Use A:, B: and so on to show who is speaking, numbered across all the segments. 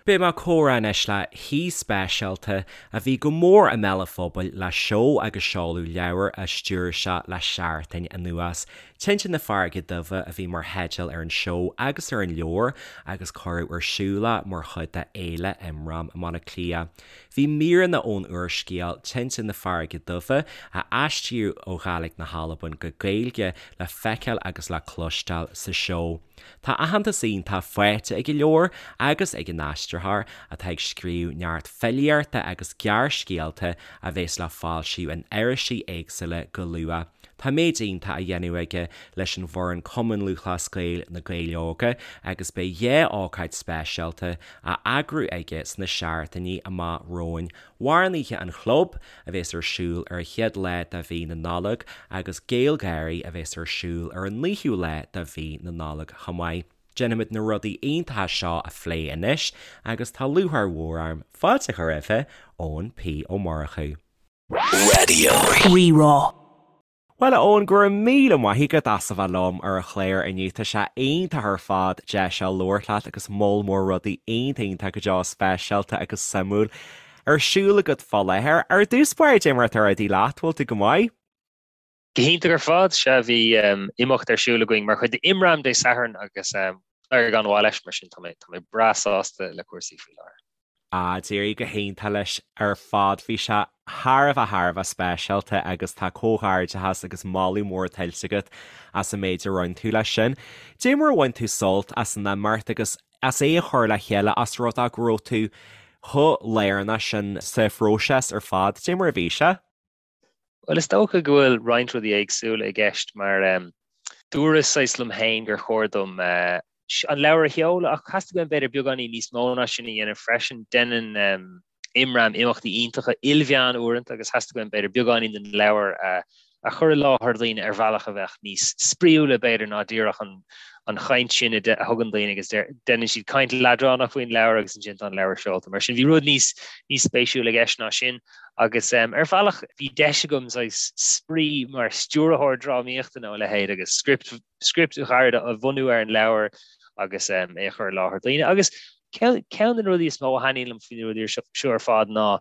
A: Beidh mé ag comhrá anois le haoi speisialta a bhí go mór i mbéal an phobail le seó agus seoladh leabhair a stiúir sé le seachtain anuas. Tinte na Farraige Duibhe a bhí mar theideal ar an seó agus ar an leabhar agus cuireadh ar siúl é mar chuid de Fhéile Imram i mBaile Átha Cliath. Bhí míreanna ón úrscéal Tinte na Farraige Duibhe, a aistríodh ó Ghàidhlig na hAlban go Gaeilge, le feiceáil agus le cloisteáil sa seó. Tá aitheantas iontach faighte ag an leabhar agus ag an aistritheoir, atá ag scríobh neart filíochta agus gearrscéalta a bheas le foilsiú in irisí éagsúla go luath. Tá méid iontach á dhéanamh aige leis an bhfoireann Cumann Lúthchleas Gael, Na Gaeil Óga, agus beidh 2 ócáid speisialta á eagrú aige sna seachtainí amach romhainn. Amhránaithe an Chlub, a bheas ar siúl ar an chéad lá de mhí na Nollag, agus GaelGÁIRÍ, a bheas ar siúl ar an naoú lá de mhí na Nollag chomh maith. Déanfaimid na rudaí iontacha seo a phlé anois agus tá lúcháir mhór orm fáilte a chur roimhe, Eoin P. Ó Murchú.
B: Raidió Rí-Rá.
A: Bhuel, a Eoin, go raibh míle maith agat as a bheith liom ar an chlár inniu. Tá sé iontach ar fad deis seo labhairt leat agus moll mór rudaí iontach iontach go deo speisialta agus suimiúil ar siúl agat fá láthair. Ar dtús báire, cad é mar atá rudaí leat, bhfuil tú go maith?
C: Go hiontach ar fad, sea, bhí imeacht ar siúl againn mar chuid d'Imram Dé Sathairn agus d'éirigh an-mhaith leis, mar sin tá mé tá mé breá sásta le cúrsaí faoi láthair.
A: Ah, d'éirigh go hiontach leis ar fad. Bhí sé thar a bheith thar a bheith speisialta agus tá comhghairdeachas agus moladh mór tuillte agat as an méid a rinne tú leis sin. Cad é mar a bhain tú sult as an imeacht agus as é a chur le chéile as rud é go raibh tú chomh lárnach sin sa phróiseas ar fad. Cad é mar a bhí sé?
C: Bhuel, is dócha go bhfuil roinnt rudaí éagsúla i gceist mar dúras saghas liom féin gur chóir dom an leabhar a sheoladh ach theastaigh uaim b'fhéidir beagáinín níos mó ná sin a dhéanamh freisin. Déanann Imram imeachtaí iontacha ilmheán uaireanta agus theastaigh uaim b'fhéidir beagáinín den leabhar a a chur i láthair daoine ar bhealach a bheadh níos spraíúla b'fhéidir ná díreach an an chaint sin a thugann daoine agus déanann siad caint leadránach faoin leabhar agus ansin tá an leabhar seolta. Mar sin bhí rud níos níos spéisiúla i gceist ná sin agus ar bhealach bhí deis agam saghas spraoi mar stiúrthóir drámaíochta nó a leithéid agus script script ghairid a bhunú ar an leabhar agus é a chur i láthair daoine. Agus ceann de na rudaí is mó a thaitníonn liom faoi na rudaí seo ar fad ná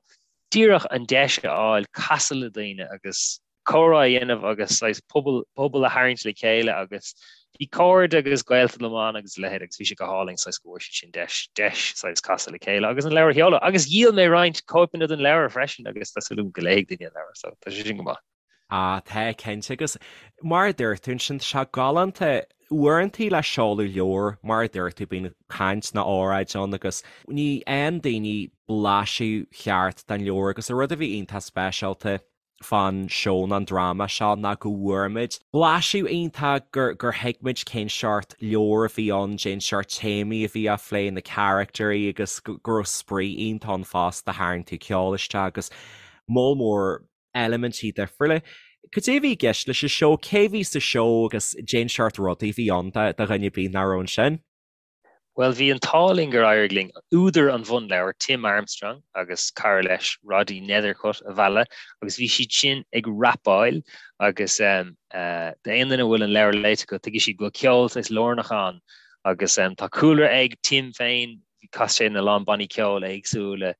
C: díreach an deis a fháil casadh le daoine agus comhrá a dhéanamh agus saghas pobal pobal a tharraingt le chéile agus bhí cairde agus gaolta liom ann agus a leithéid agus bhí sé go hálainn saghas go bhfuair siad sin deis deis saghas casadh le chéile agus an leabhar a sheoladh agus dhíol mé roinnt cóipeanna den leabhar freisin agus tá súil agam go léifidh daoine an leabhar so tá sé sin go maith.
A: Ah, tá, cinnte agus mar a dúirt tú ansin, tá sé galánta uaireantaí le seoladh leabhair, mar a dúirt tú, bíonn caint nó óráid ann agus ní fhaigheann daoine blaiseadh cheart den leabhar agus an rud a bhí iontach speisialta fán seó nó an dráma seo ná go bhfuair muid blaiseadh iontach, gur gur thuig muid cén seort leabhair a bhí ann, cén seort téamaí a bhí á phlé, na caractairí agus go raibh spraoi iontach ann fosta, tharraing tú ceol isteach agus moll mór eilimintí difriúla. Cad é a bhí i gceist leis an seó? Cé a bhí sa seó agus cén seort rudaí a bhí ann do dhuine ar bith nach raibh ansin?
C: Bhuel, bhí an t-ádh linn gur éirigh linn údar an bhunleabhair, Tim Armstrong, agus cara leis, Roddy Nethercutt, a mhealladh agus bhí siad sin ag rapáil agus d'aon duine a bhfuil an leabhar léite acu, tuigfidh siad go bhfuil ceol saghas lárnach ann agus tá cúlra ag Tim féin, chas sé ina lán bannaí ceoil éagsúla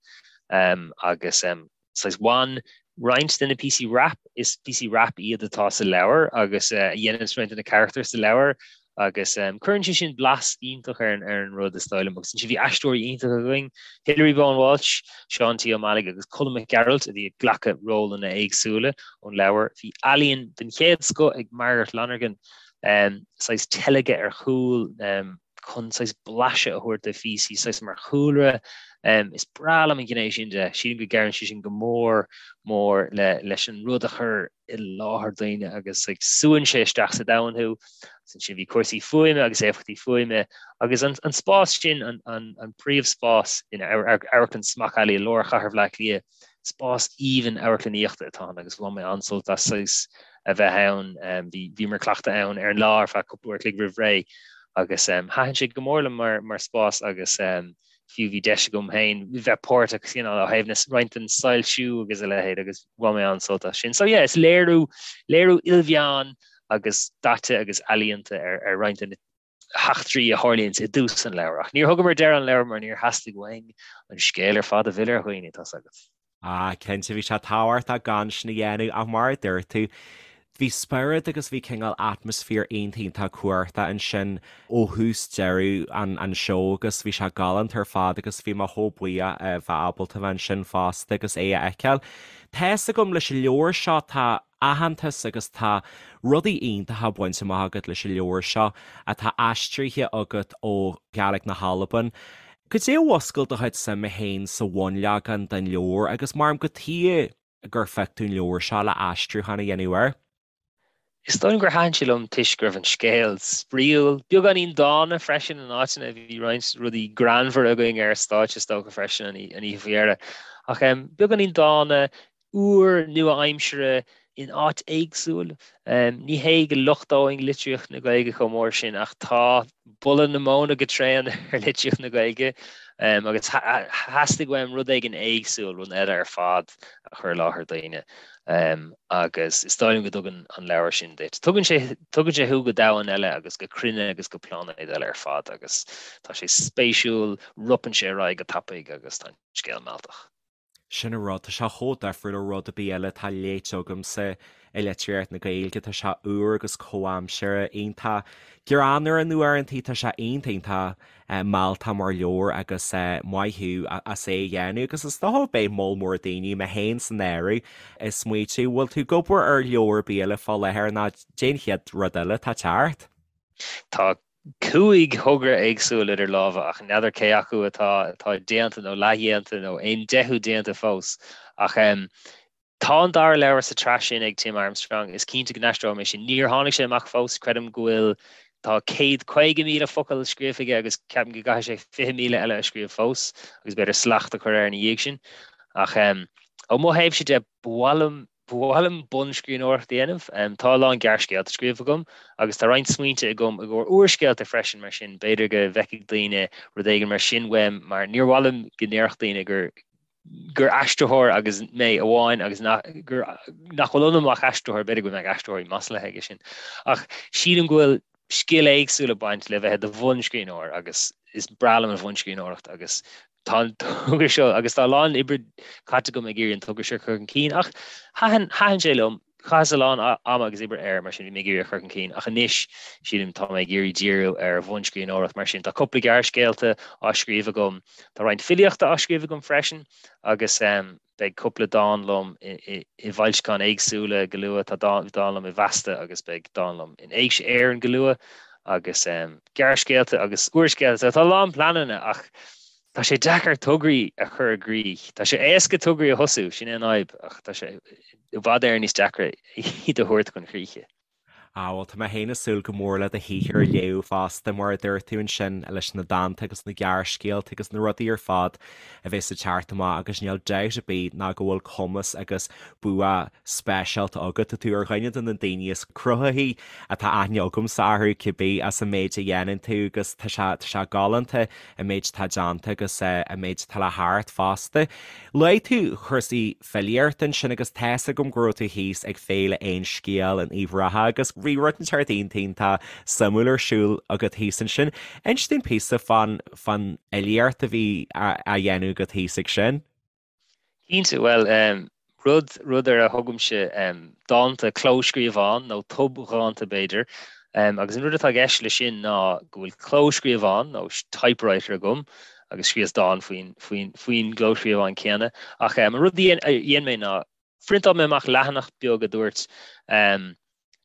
C: agus saghas bhain roinnt de na píosaí rap, is píosaí rap iad atá sa leabhar agus a dhéanann roinnt de na carachtair sa leabhar agus cuireann sé sin blas iontach ar ar an rud is dóigh liom agus ansin bhí aisteoirí iontacha againn, Hilary Bowen Walsh, Seán T. Ó Meallaigh agus Colm Mac Gearailt a bhí ag glacadh rólanna éagsúla ón leabhar. Bhí ealaíon den chéad scoth ag Margaret Lonergan, saghas teilgeadh ar chúl, chun saghas blaiseadh a thabhairt do phíosaí saghas mar chúlra. Is breá liom an ghné sin de. Sílim go gcabhraíonn sé sin go mór mór le leis an rud a chur i láthair daoine agus like, súann sé isteach sa domhan thú. Agus ansin bhí cúrsaí fuaime agus éifeachtaí fuaime agus an, an spás sin, an, an, an príomhspás in Amharclann Smock Alley i lár chathair Bhaile Átha Cliath, Spás aoibhinn amharclannaíochta atá ann agus bhain mé an-sult as saghas a bheith ann. Bhí, bhíomar ag cleachtadh ann ar an lá ar feadh cúpla uair a chloig roimh ré agus thaitin sé go mór liom mar, mar spás agus fiú bhí deis agam féin bheith páirteach you know, ó thaobh na, roinnt den soilsiú agus a leithéid agus bhain mé an-sult as sin. So yeah, is léiriú, léiriú ilmheán agus daite agus ealaíonta ar, ar roinnt de na. heachtraí a tharlaíonns i dtús an leabhair. Ach níor thugamar deireadh an leabhair mar níor theastaigh uainn an scéal ar fad a mhilleadh ar dhaoine, tá's agat.
A: Ah, cinnte, bhí sé tábhachtach gan sin a dhéanamh ach mar a dúirt tú, bhí spiorad agus bhí cineál atmaisféar iontach iontach cumhachtach ansin ó thús deireadh an an seó agus bhí sé galánta ar fad agus bhí mé chomh buíoch a bheith ábalta bheith ansin fosta agus é a fheiceáil. Tá fhios agam leis an leabhar seo tá aitheantas agus tá rudaí iontacha bainte amach agat leis an leabhar seo atá aistrithe agat ó Ghaeilge na hAlban. Cad é a mhúscail do chuid suime féin sa bhunleagan den leabhar agus mar cad chuige gur phioc tú an leabhar seo le aistriúchán a dhéanamh air?
C: Is dóigh liom gur thaitin sé liom toisc go raibh an scéal spraíúil, beagáinín dána freisin in áiteanna, bhí roinnt rudaí greannmhara againn ar stáitse is dócha freisin an oíche faoi dheireadh. Ach beagáinín dána, úr, nua-aimseartha in áit éagsúil. Ní hé go lochtóinn litríocht na Gaeilge chomh mór sin ach tá boladh na móna go tréan ar litríocht na Gaeilge agus theastaigh uaim rud éigin éagsúil, rud eile ar fad a chur i láthair daoine agus is dóigh liom go dtugann an leabhar sin duit. Tugann sé, tugann sé thú go domhan eile agus go cruinne agus go pláinéad eile ar fad agus tá sé spéisiúil, ropann sé ar aghaidh go tapaidh agus tá an scéal mealltach.
A: Sin an rud, tá sé chomh difriúil ó rud ar bith eile atá léite agamsa i litríocht na Gaeilge, tá sé úr agus comhaimseartha, iontach greannmhar in uaireantaí, tá sé iontach iontach mealltach mar leabhar agus maith thú as é a dhéanamh agus is dócha beidh moll mór daoine, mé féin san áireamh, ag smaoitiú, bhfuil tú ag obair ar leabhar ar bith eile fá láthair nó cad é an chéad rud eile atá ag teacht?
C: Tá 5 thogra éagsúil idir lámha ach n'fheadar cé acu atá atá déanta nó leathdhéanta nó aon deichiú déanta fós. Ach tá an dara leabhar sa tsraith sin ag Tim Armstrong, is cinnte go n-aistreoidh mé sin. Níor tháinig sé amach fós, creidim go bhfuil tá 150,000 focal scríofa aige agus ceapaim go gcaithfidh sé 20,000 eile a scríobh fós agus b'fhéidir slacht a chur air ina dhiaidh sin. Ach ó mo thaobhse de, ba mhaith liom Ba mhaith liom bunscríbhneoireacht a dhéanamh. Tá a lán gearrscéalta scríofa agam agus tá roinnt smaointe agam i gcomhair úrscéalta freisin mar sin b'fhéidir go bhfeicfidh daoine rud éigin mar sin uaim mar níor mhaith liom go ndéarfadh daoine gur gur aistritheoir agus mé amháin agus nach gur nach bhfuil ionam ach aistritheoir, b'fhéidir go mbeadh aistritheoirí maslaithe aige sin. Ach sílim go bhfuil scil éagsúil ag baint le bheith i do bhunscríbhneoir agus is breá liom an bhunscríbhneoireacht agus tá an togra seo agus tá a lán oibre caite agam ag iarraidh an togra seo a chur chun cinn ach thaitin thaitin sé liom, chaitheas a lán ama agus oibre air mar sin bhí mé ag iarraidh a chur chun cinn ach anois sílim tá mé ag iarraidh díriú ar bhunscríbhneoireacht mar sin tá cúpla gearrscéalta á scríobh agam, tá roinnt filíochta á scríobh agam freisin agus beidh cúpla dán liom i bhfoilseacháin éagsúla go luath, tá dán liom i bhFeasta agus beidh dán liom in Éigse Éireann go luath agus gearrscéalta agus úrscéalta. Tá a lán pleananna ach tá sé deacair tograí a chur i gcrích. Tá sé éasca tograí a thosú, sin é an fhadhb, ach tá sé i bhfad Éireann níos deacra iad a thabhairt chun críche.
A: Ah, bhuel, tá mé féin ag súil go mór le do shaothar a léamh fosta, mar a dúirt tú ansin, leis na dánta agus na gearrscéalta agus na rudaí ar fad a bheas ag teacht amach agus níl dabht ar bith ná go bhfuil cumas agus bua speisialta agat. Tá tú ar dhuine de na daoine is cruthaithí atá aithne agamsa orthu, cibé, as an méid a dhéanann tú agus tá sé, tá sé galánta an méid atá déanta agus an méid atá le theacht fosta. Luaigh tú cúrsaí filíochta ansin agus tá fhios agam go raibh tú thíos ag Féile Aon Scéal in Uíbh Ráthach agus bhí rud inteacht iontach iontach suimiúil ar siúl agat thíos ansin. Inis dúinn píosa fán fán fhilíocht a bhí á dhéanamh agat thíos ag sin.
C: Cinnte, bhuel, rud, rud ar a thugaimse dánta clóscríobhán nó tobdhánta b'fhéidir, agus an rud atá i gceist leis sin ná go bhfuil clóscríobhán nó typewriter agam agus scríos dán faoin, faoin, faoin gclóscríobhán céanna. Ach an rud a dhein mé ná phriontáil mé amach leathanach beag a dúirt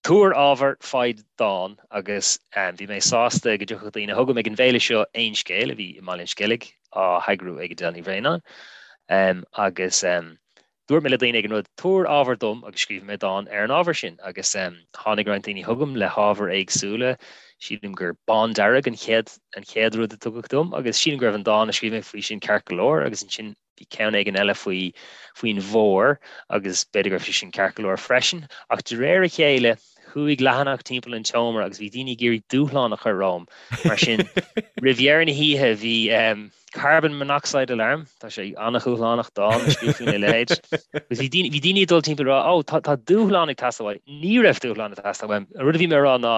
C: Tabhair ábhar, faigh dán agus bhí mé sásta go dtiocfadh daoine chugam ag an bhféile seo Aon Scéal a bhí i mBaile an Sceilg á heagrú ag Edel Ní Bhraonáin agus Dúirt mé le daoine ag an rud, tabhair ábhar dom agus scríobhfaidh mé dán ar an ábhar sin. Agus tháinig roinnt daoine chugam le hábhair éagsúla. Sílim gur bándearg an chéad an chéad rud a tugadh dom agus sílim go raibh an dán a scríobh mé faoi sin ceart go leor agus ansin bhí ceann éigin eile faoi faoin bhfómhar agus b'fhéidir go raibh sé sin ceart go leor freisin. Ach de réir a chéile chuaigh leathanach timpeall an tseomra agus bhí daoine ag iarraidh dúshlán a chur romham. Mar sin roimh dheireadh na hoíche bhí Carbon monoxide alarm, tá sé an-dhúshlánach dán a scríobh faoina leithéid. Agus bhí daoine, bhí daoine ag dul timpeall ag rá, oh, tá, tá dúshlán ag teastáil uait. Ní raibh dúshlán ag teastáil uaim. An rud a bhí mé a rá ná,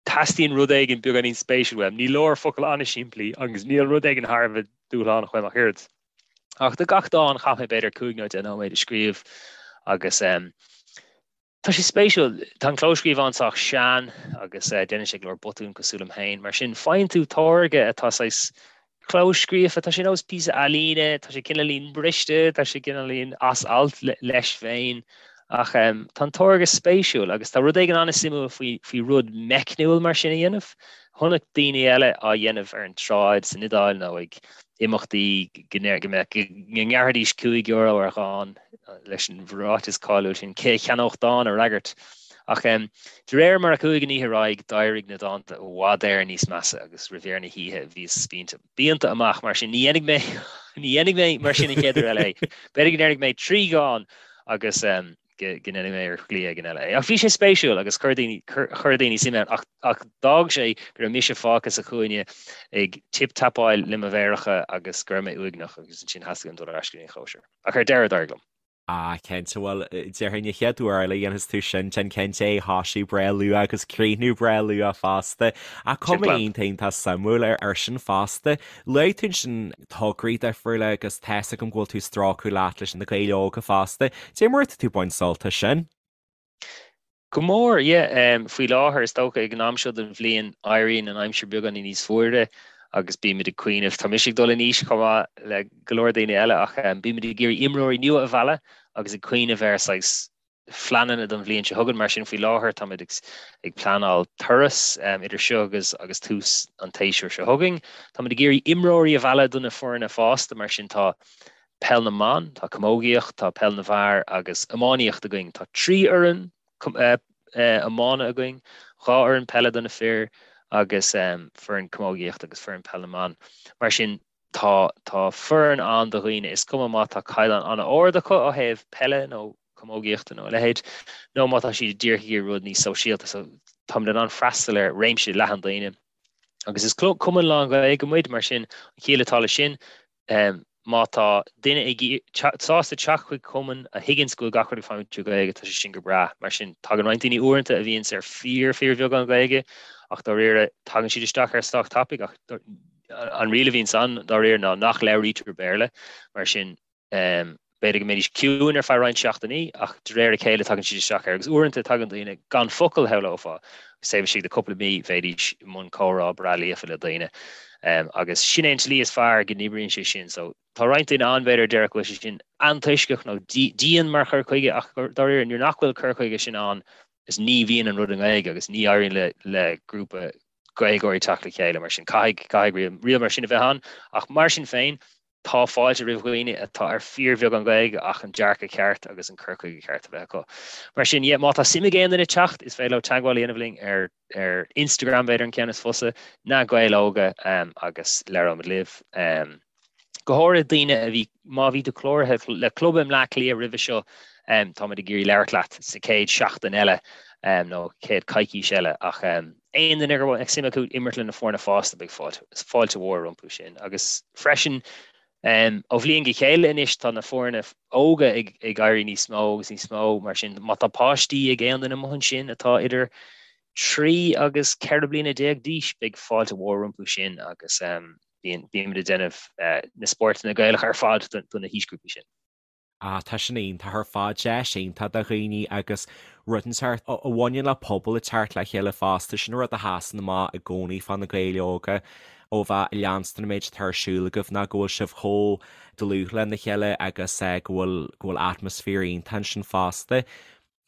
C: Teastaíonn rud éigin beagáinín spéisiúil uaim. Ní leor focail an-simplí agus níl rud éigin thar a bheith dúshlánach uaim ach oiread. Ach do gach dán chaith mé b'fhéidir 5 nó 10 nóiméad ag scríobh agus tá sé spéisiúil. Tá an clóscríobhán sách sean agus déanann sé go leor botún cosúil liom féin. Mar sin faigheann tú táirge atá saghas clóscríofa, tá sé nós píosa ealaíne, tá sé cineáilín briste, tá sé cineáilín as alt leis féin, ach tá an táirge spéisiúil agus tá rud éigin an-suimiúil faoi faoi rud meicniúil mar sin a dhéanamh. Chonaic daoine eile á dhéanamh ar an tsráid san Iodáil nó ag imeachtaí go ngearrfaidís €5 ar dhán leis an ráiteas cáiliúil sin 'Cé a cheannódh dán a fhreagairt? Ach de réir mar a chuaigh an oíche ar aghaidh, d'éirigh na dánta i bhfad Éireann níos measa agus roimh dheireadh na hoíche bhíos spíonta pianta amach. Mar sin, ní dhéanfaidh mé ní dhéanfaidh mé mar sin an chéad uair eile é. B'fhéidir go ndéanfaidh mé 3 dhán agus go ndéanfaidh mé ar shlí éigin eile é. Ach bhí sé spéisiúil agus chuir daoine chuir daoine suim ann ach ach d'fhág sé go raibh mise fágtha sa chúinne ag tip-tapáil le mo mhéaracha agus go raibh mé uaigneach agus ansin theastaigh uaim dul ar ais go dtí an chóisir. Ach ar deireadh d'éirigh liom.
A: Ah, cinnte, bhuel, déarfainn an chéad uair eile a dhéanfas tú sin, déan cinnte é a thoisiú breá luath agus críochnú breá luath fosta. Ach cuma iontach iontach suimiúil ar sin fosta. Luaigh tú ansin tograí difriúla agus tá's agam go bhfuil tú ag strácadh leat leis na Gaeil Óga fosta. Cad é mar atá tú ag baint sult as sin?
C: Go mór, yeah. Faoi láthair, is dócha, ag an am seo den bhliain, éiríonn an aimsir beagáinín níos fuaire agus bímid ag cuimhneamh, tá mise ag dul in aois chomh maith le go leor daoine eile, ach bímid ag iarraidh imreoirí nua a mhealladh agus ag cuimhneamh ar saghas phleananna don bhliain seo chugainn. Mar sin, faoi láthair, táimid ag pleanáil turas idir seo agus agus tús an tséasúir seo chugainn. Táimid ag iarraidh imreoirí a mhealladh do na foirne fásta, mar sin tá Peil na mBan, tá camógaíocht, tá peil na bhfear agus iománaíocht againn. Tá 3 fhoireann iomána againn, 2 fhoireann peile do na fir agus foireann camógaíochta agus foireann peil na mban. Mar sin tá tá foireann ann do dhaoine, is cuma má tá caighdeán an-ard acu ó thaobh peile nó camógaíochta nó a leithéid, nó má tá siad díreach ag iarraidh rud níos sóisialta. So táimid in ann freastal ar réimse leathan daoine. Agus is cumann lán-Ghaeilge muid, mar sin an chiall atá leis sin, Má tá duine ag sásta teacht chuig cumann a thuigeanns go bhfuil gach rud ag feidhmiú trí Ghaeilge, tá sé sin go breá. Mar sin, tagann roinnt daoine uaireanta a bhíonns ar fíor fíorbheagán Gaeilge ach dáiríre tagann siad isteach air sách tapaidh ach an riail a bhíonns ann dáiríre ná nach labhraítear Béarla. Mar sin, B'fhéidir go mbeidís ciúin ar feadh roinnt seachtainí, ach de réir a chéile tagann siad isteach air, agus uaireanta tagann daoine gan focal, shamhlófá, agus taobh istigh de cúpla mí bheidís i mbun comhrá breá líofa le daoine. Agus sin é an tslí is fearr go n-oibríonn sé sin. So, tá roinnt daoine ann, b'fhéidir, a déarfadh go bhfuil sé sin antoisceach nó dian mar chur chuige, ach dáiríre, nuair nach bhfuil cur chuige sin ann, is ní bhíonn an rud i nGaeilge agus ní éiríonn le le grúpa Gaeilgeoirí teacht le chéile mar sin. Caithfidh, caithfidh riail mar sin a bheith ann, ach mar sin féin, Tá fáilte roimh dhaoine atá ar fíorbheagán Gaeilge ach an dearcadh ceart agus an cur chuige ceart a bheith acu. Mar sin, yeah, má tá suim ag aon duine teacht, is féidir leo teagmháil a dhéanamh linn ar ar Instagram, b'fhéidir an ceann is fusa, Na Gaeil Óga um, agus labhróimid libh. Um, go háirithe daoine a bhí, má bhí tú cláraithe le club i mBleá Cliath roimhe seo, um, táimid ag iarraidh labhairt leat sa chéad seachtain eile um, nó chéad coicís eile ach um, Aon duine go bhfuil suim acu imirt le na foirne fásta, beidh fáilte mhór rompu sin. Agus freisin, ó bhliain go chéile anois tá na foirne óga ag éirí níos mó agus níos mó, mar sin má tá páistí ag aon duine amuigh ansin atá idir 3 agus 14 bliana d'aois, beidh fáilte mhór rompu sin agus bímid ag déanamh na spórtanna Gaelacha ar fad do na haoisghrúpaí sin.
A: Ah, tá sin iontach ar fad, deis iontach do dhaoine agus rud inteacht a bhaineann le pobal ag teacht le chéile fosta, sin rud a sheasann amach i gcónaí fá na Gaeil Óga ó bheith ag leanstan an méid atá ar siúl agaibh ná go bhfuil sibh chomh dlúth lena chéile agus go bhfuil go bhfuil atmaisféar iontach ansin fosta.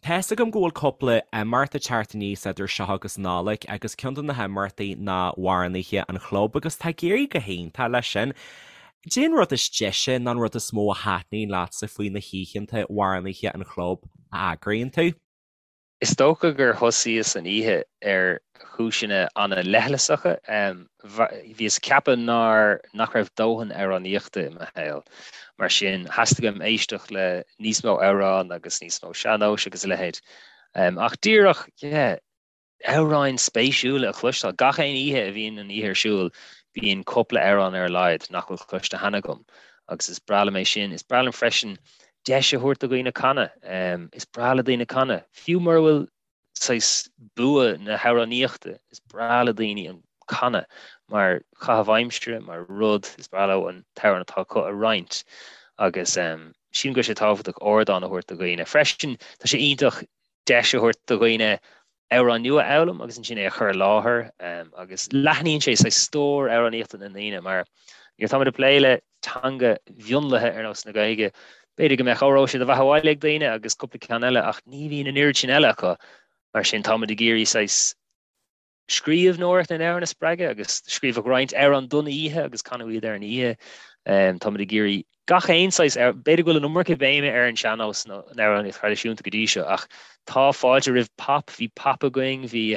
A: Tá's agam go bhfuil cúpla imeacht ag teacht aníos idir seo agus Nollaig agus ceann de na himeachtaí ná Amhránaithe an Chlub agus tá ag éirí go hiontach leis sin. Cad é an rud is deise nó an rud is mó a thaitníonn leatsa faoi na hoícheanta Amhránaithe an Chlub a eagraíonn tú?
C: Is dócha gur thosaíos an oíche ar chúiseanna an-leithleasacha. Bhíos ag ceapadh nár, nach raibh dóthain amhránaíochta i mo shaol. Mar sin, theastaigh uaim éisteacht le níos mó amhrán agus níos mó sean-nóis agus a leithéid. Ach díreach, yeah, amhráin spéisiúla a chloisteáil. Gach aon oíche a bhíonn an oíche ar siúl, bíonn cúpla amhrán ar a laghad nach bhfuil cloiste cheana agam. Agus is breá liom é sin. Is breá liom freisin deis a thabhairt do dhaoine canadh. Is breá le daoine canadh, fiú mura bhfuil. Saghas bua na hamhránaíochta, is breá le daoine an canadh mar chaitheamh aimsire, mar rud, is breá leo an t-amhrán atá acu a roinnt agus sílim go bhfuil sé tábhachtach ardán a thabhairt do dhaoine. Freisin, tá sé iontach deis a thabhairt do dhaoine amhrán nua a fhoghlaim agus ansin é a chur i láthair agus leathnaíonn sé saghas stór amhránaíochta na ndaoine mar nuair atáimid ag plé le teanga mhionlaithe ar nós na Gaeilge, b'fhéidir go mbeadh Óró Sé do Bheatha 'Bhaile ag daoine agus cúpla ceann eile ach ní bhíonn an oiread sin eile acu. Mar sin táimid ag iarraidh saghas scríbhneoireacht na n-amhrán a spreagadh agus scríobhadh roinnt amhrán don oíche agus canadh iad ar an oíche. Táimid ag iarraidh gach aon saghas, b'fhéidir go bhfuil an iomarca béime ar an sean-nós nó an amhránaíocht thraidisiúnta go dtí seo ach tá fáilte roimh pop, bhí pop againn, bhí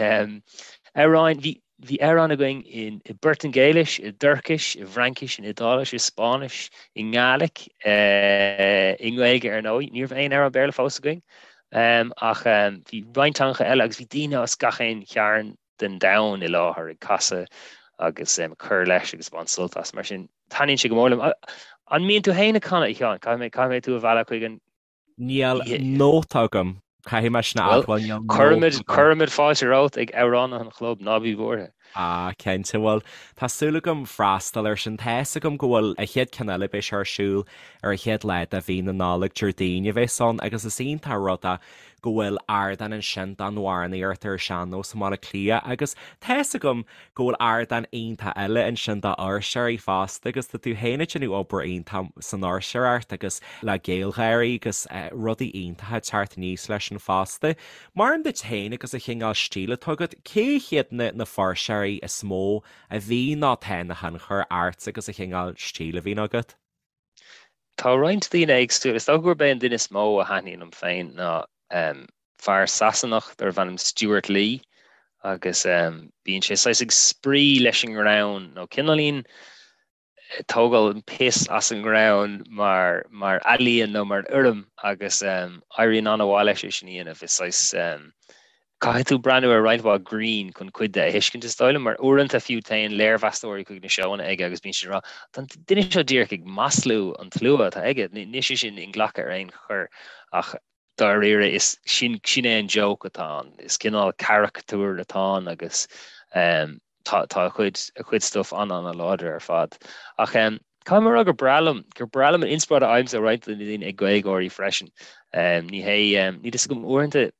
C: amhráin, bhí Bhí amhráin againn i bPortaingéilis, i dTuircis, i bhFraincis, in Iodáilis, i Spáinnis, i nGaeilic, i nGaeilge ar ndóigh. Ní raibh aon amhrán Béarla fós againn ach bhí roinnt teangacha eile agus bhí daoine as gach aon chearn den domhan i láthair ag casadh agus ag cur leis agus ag baint sult as. Mar sin, taitníonn sé go mór liom. An mbíonn tú féin ag canadh, a Sheáin? Caithfidh mé, caithfidh mé tú a mhealladh chuig an
A: Níl nóta agam. Caithfidh mé sin a admháil, níl nóta
C: agam. Cuirfimid fáilte romhat ag amhránaithe an chlub, ná bí buartha.
A: Ah, cinnte, bhuel, tá súil agam freastal air sin. Tá fhios agam go bhfuil an chéad ceann eile, beidh sé ar siúl ar an chéad lá de mhí na Nollag, Déardaoin a bheas ann, agus is iontach an rud é go bhfuil ardán ansin don amhránaíocht ar an sean-nós i mBaile Átha Cliath agus tá fhios agam go bhfuil ardán iontach eile ansin d'fhuirseoirí fosta agus tá tú féin ag déanamh obair iontach san fhuirseoireacht agus le GaelGÁIRÍ agus rudaí iontacha ag teacht aníos leis sin fosta. Mar duit féin agus an chineál stíl atá agat, cé hiad na na fuirseoirí is mó a bhí nó atá ina thionchar ort agus an chineál stíl a bhíonn agat?
C: Tá roinnt daoine éagsúla. Is dócha gurb é an duine is mó a thaitníonn liom féin ná fear Sasanach darbh ainm Stewart Lee agus bíonn sé saghas ag spraoi leis an ngreann nó cineáilín ag tógáil an piss as an ngreann mar mar ealaíon nó mar fhoirm agus éiríonn an-mhaith leis é sin a dhéanamh. Is saghas Caithfidh tú breathnú ar roinnt mhaith grinn chun cuid de a thuiscint, is dóigh liom, mar uaireanta fiú téann léirmheastóirí chuig na seóanna aige agus bíonn siad ag rá, 'Tá an duine seo díreach ag maslú an tslua atá aige, níl sé sin inghlactha ar aon chor'. Ach dáiríre, is sin sin é an joke atá ann. Is cineál caracatúr atá ann agus tá tá a chuid a chuid stuif an-an-láidir ar fad. Ach caithfidh mé a rá gur breá liom gur breá liom an inspioráid a fhaighimse ó roinnt de na daoine ag GaelGÁIRÍ freisin. Ní hé níl a fhios agam uaireanta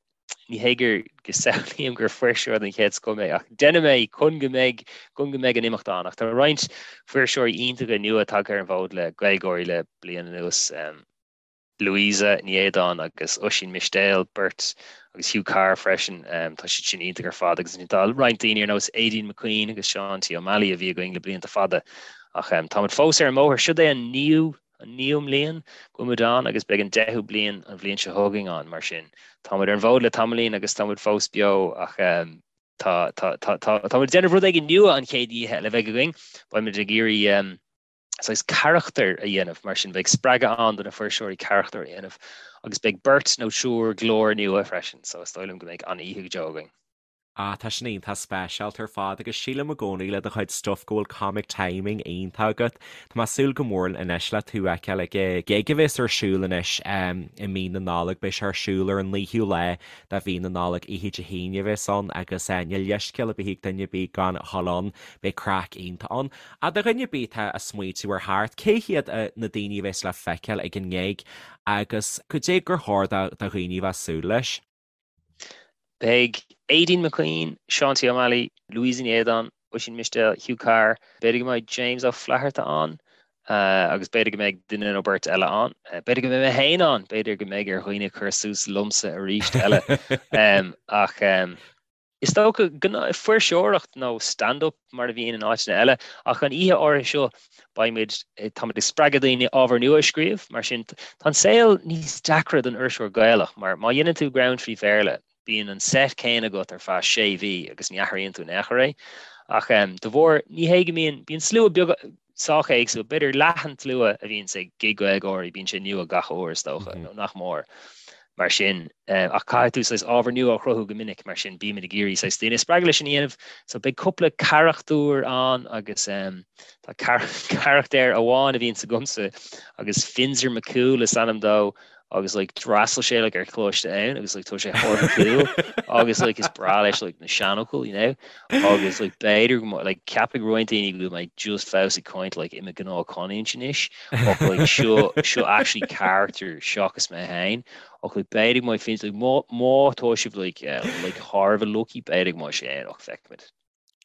C: Ní hé gur go samhlaím gur fuirseoir den chéad scoth mé, ach déanaim é chun go mbeidh chun go mbeidh an imeacht ann. Ach tá roinnt fuirseoirí iontacha nua tagtha ar an bhfód le GaelGÁIRÍ le bliain anuas, Louisa Ní Éadáin agus Oisín Mistéil, beirt, agus Hugh Carr freisin. Tá siad sin iontach ar fad agus ansin tá roinnt daoine ar nós Aideen McQueen agus Seán T. Ó Meallaigh a bhí againn le blianta fada. Ach táimid fós ar an mbóthar. Siod é an naoú an naoú mbliain go bhfuil muid ann agus beidh an deichiú bliain an bhliain seo chugainn ann, mar sin tá muid ar an bhfód le tamaillín agus tá muid fós beo ach tá tá tá tá tá muid ag déanamh rud éigin nua an chéad oíche eile a bheidh againn, beidh muid ag iarraidh saghas carachtar a dhéanamh, mar sin beidh spreagadh ann do na fuirseoirí carachtar a dhéanamh agus beidh beirt nó triúr glór nua freisin, so is dóigh liom go mbeidh an-oíche go deo againn.
A: Ah, tá sin iontach speisialta ar fad agus sílim i gcónaí le do chuid stuif go bhfuil comic timing iontach agat. Tá mé ag súil go mór anois le tú a fheiceáil ag an gig a bheas ar siúl anois i mí na Nollag. Beidh sé ar siúl ar an 9ú lá de mhí na Nollag, oíche Dé hAoine a bheas ann agus níl leithscéal ar bith ag duine ar bith gan a dhul ann. Beidh craic iontach ann. Ach do dhuine ar bith atá ag smaoitiú ar theacht, cé hiad na daoine a bheas le feiceáil ag an ngig agus cad é gur chóir do dhaoine a bheith ag súil leis?
C: Beidh Aideen McQueen, Seán T. Ó Meallaigh, Louisa Ní Éadáin, Oisín Mistéil, Hugh Carr, b'fhéidir go mbeidh James Ó Flatharta ann agus b'fhéidir go mbeidh duine nó beirt eile ann. B'fhéidir go mbeidh mé féin ann, b'fhéidir go mbeidh ar dhaoine cur suas liomsa arís eile. Ach is dócha fuirseoireacht nó stand-up mar a bhíonn in áiteanna eile, ach an oíche áirithe seo beimid, táimid ag spreagadh daoine ábhar nua a scríobh, mar sin tá an saol níos deacra don fhuirseoir Gaelach mar má dhéanann tú greann trí Bhéarla, bíonn an set céanna agat ar feadh sé mhí agus ní athraíonn tú in aon chor é. Ach de bharr, ní hé go mbíonn, bíonn slua beag sách éagsúil, b'fhéidir leath an tslua a bhíonns ag gig GaelGÁIRÍ, bíonn sé nua gach uair is dócha, nó nach mór. Mar sin, ach caithfidh tú saghas ábhar nua a chruthú go minic, mar sin bímid ag iarraidh saghas daoine a spreagadh leis sin a dhéanamh. So beidh cúpla carachtar ann agus tá carachtar amháin a bhíonns agamsa agus Finzer McCool is ainm dó. Agus like d'fhreastail sé like ar choláiste ann agus like tá sé thar a bheith cool agus like is breá leis like na seanfhocail, you know? Agus like b'fhéidir go mbeidh like ceapfaidh roinnt daoine go bhfuil mé just fós ag caint like i mo ghnáthchanúint anois ach like seo seo actually character seachas mé féin ach like b'fhéidir go mbeidh Finzer like má má tá sibh like eh, like thar a bheith lucky b'fhéidir go mbeidh sé ann ach feicfimid.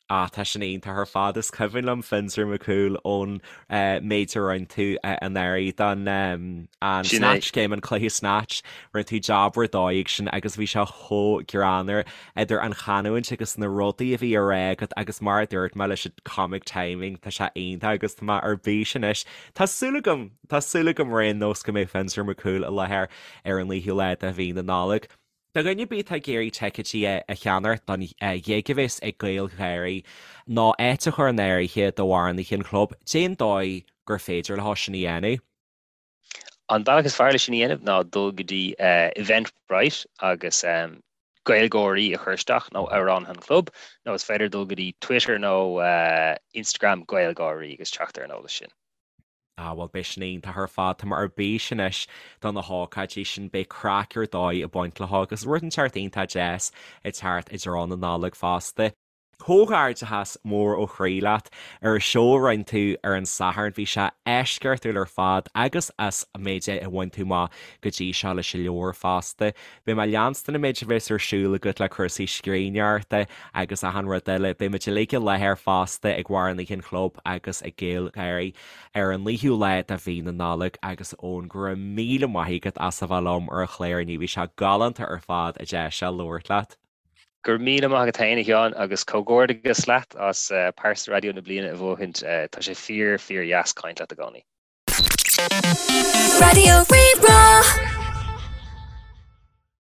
A: Ah, tá sin iontach ar fad. Is cuimhin liom Finzer McCool ón méid a rinne tú anuraidh don an
C: Sin é.
A: Snatch Game, an cluiche Snatch. Rinne tú jab ar dóigh ag sin agus bhí sé chomh greannmhar idir an chanúint agus na rudaí a bhí á rá agat agus mar a dúirt mé leis an comic timing, tá sé iontach agus tá mé ar bís anois. Tá súil agam, tá súil agam ar aon nós go mbeidh Finzer McCool i láthair ar an 9ú lá de mhí na Nollag. Do dhuine ar bith atá ag iarraidh ticéidí a cheannacht don ghig a bheas ag GaelGÁIRÍ nó áit a chur in áirithe d'amhránaithe an chlub, cén dóigh gur féidir leo sin a dhéanamh?
C: An bealach is fearr leis sin a dhéanamh ná dul go dtí Eventbrite agus GaelGÁIRÍ a chur isteach nó Amhránaithe an Chlub nó is féidir dul go dtí Twitter nó Instagram GaelGÁIRÍ agus teacht ar an eolas sin.
A: Ah bhuel beidh sin iontach ar fad, tá mé ar bís anois do na hócáidí sin, beidh craic ar dóigh ag baint leo agus rud inteacht iontach deas ag teacht i dtreo na Nollag fosta. Comhghairdeachas mór ó chroí leat ar an seó a rinne tú ar an Satharn, bhí sé eisceachtúil ar fad agus as an méid a bhain tú amach go dtí seo leis an leabhar fosta. Beidh mé ag leanstan an méid a bheas ar siúl agat le cúrsaí scríbhneoireachta agus achan rud eile. Beidh muid uilig i láthair fosta ag Amhránaithe an Chlub agus ag GaelGÁIRÍ ar an 9ú lá de mhí na Nollag agus Eoin, go raibh míle maith agat as a bheith liom ar an chlár inniu, bhí sé galánta ar fad an deis seo labhairt leat.
C: Go raibh míle maith agat féin, a Sheáin, agus comhghairdeachas leat as Pearsa Raidió na Bliana a bhuachaint. Tá sé fíor, fíor dheas caint leat i gcónaí.
B: Raidió Rí-Rá.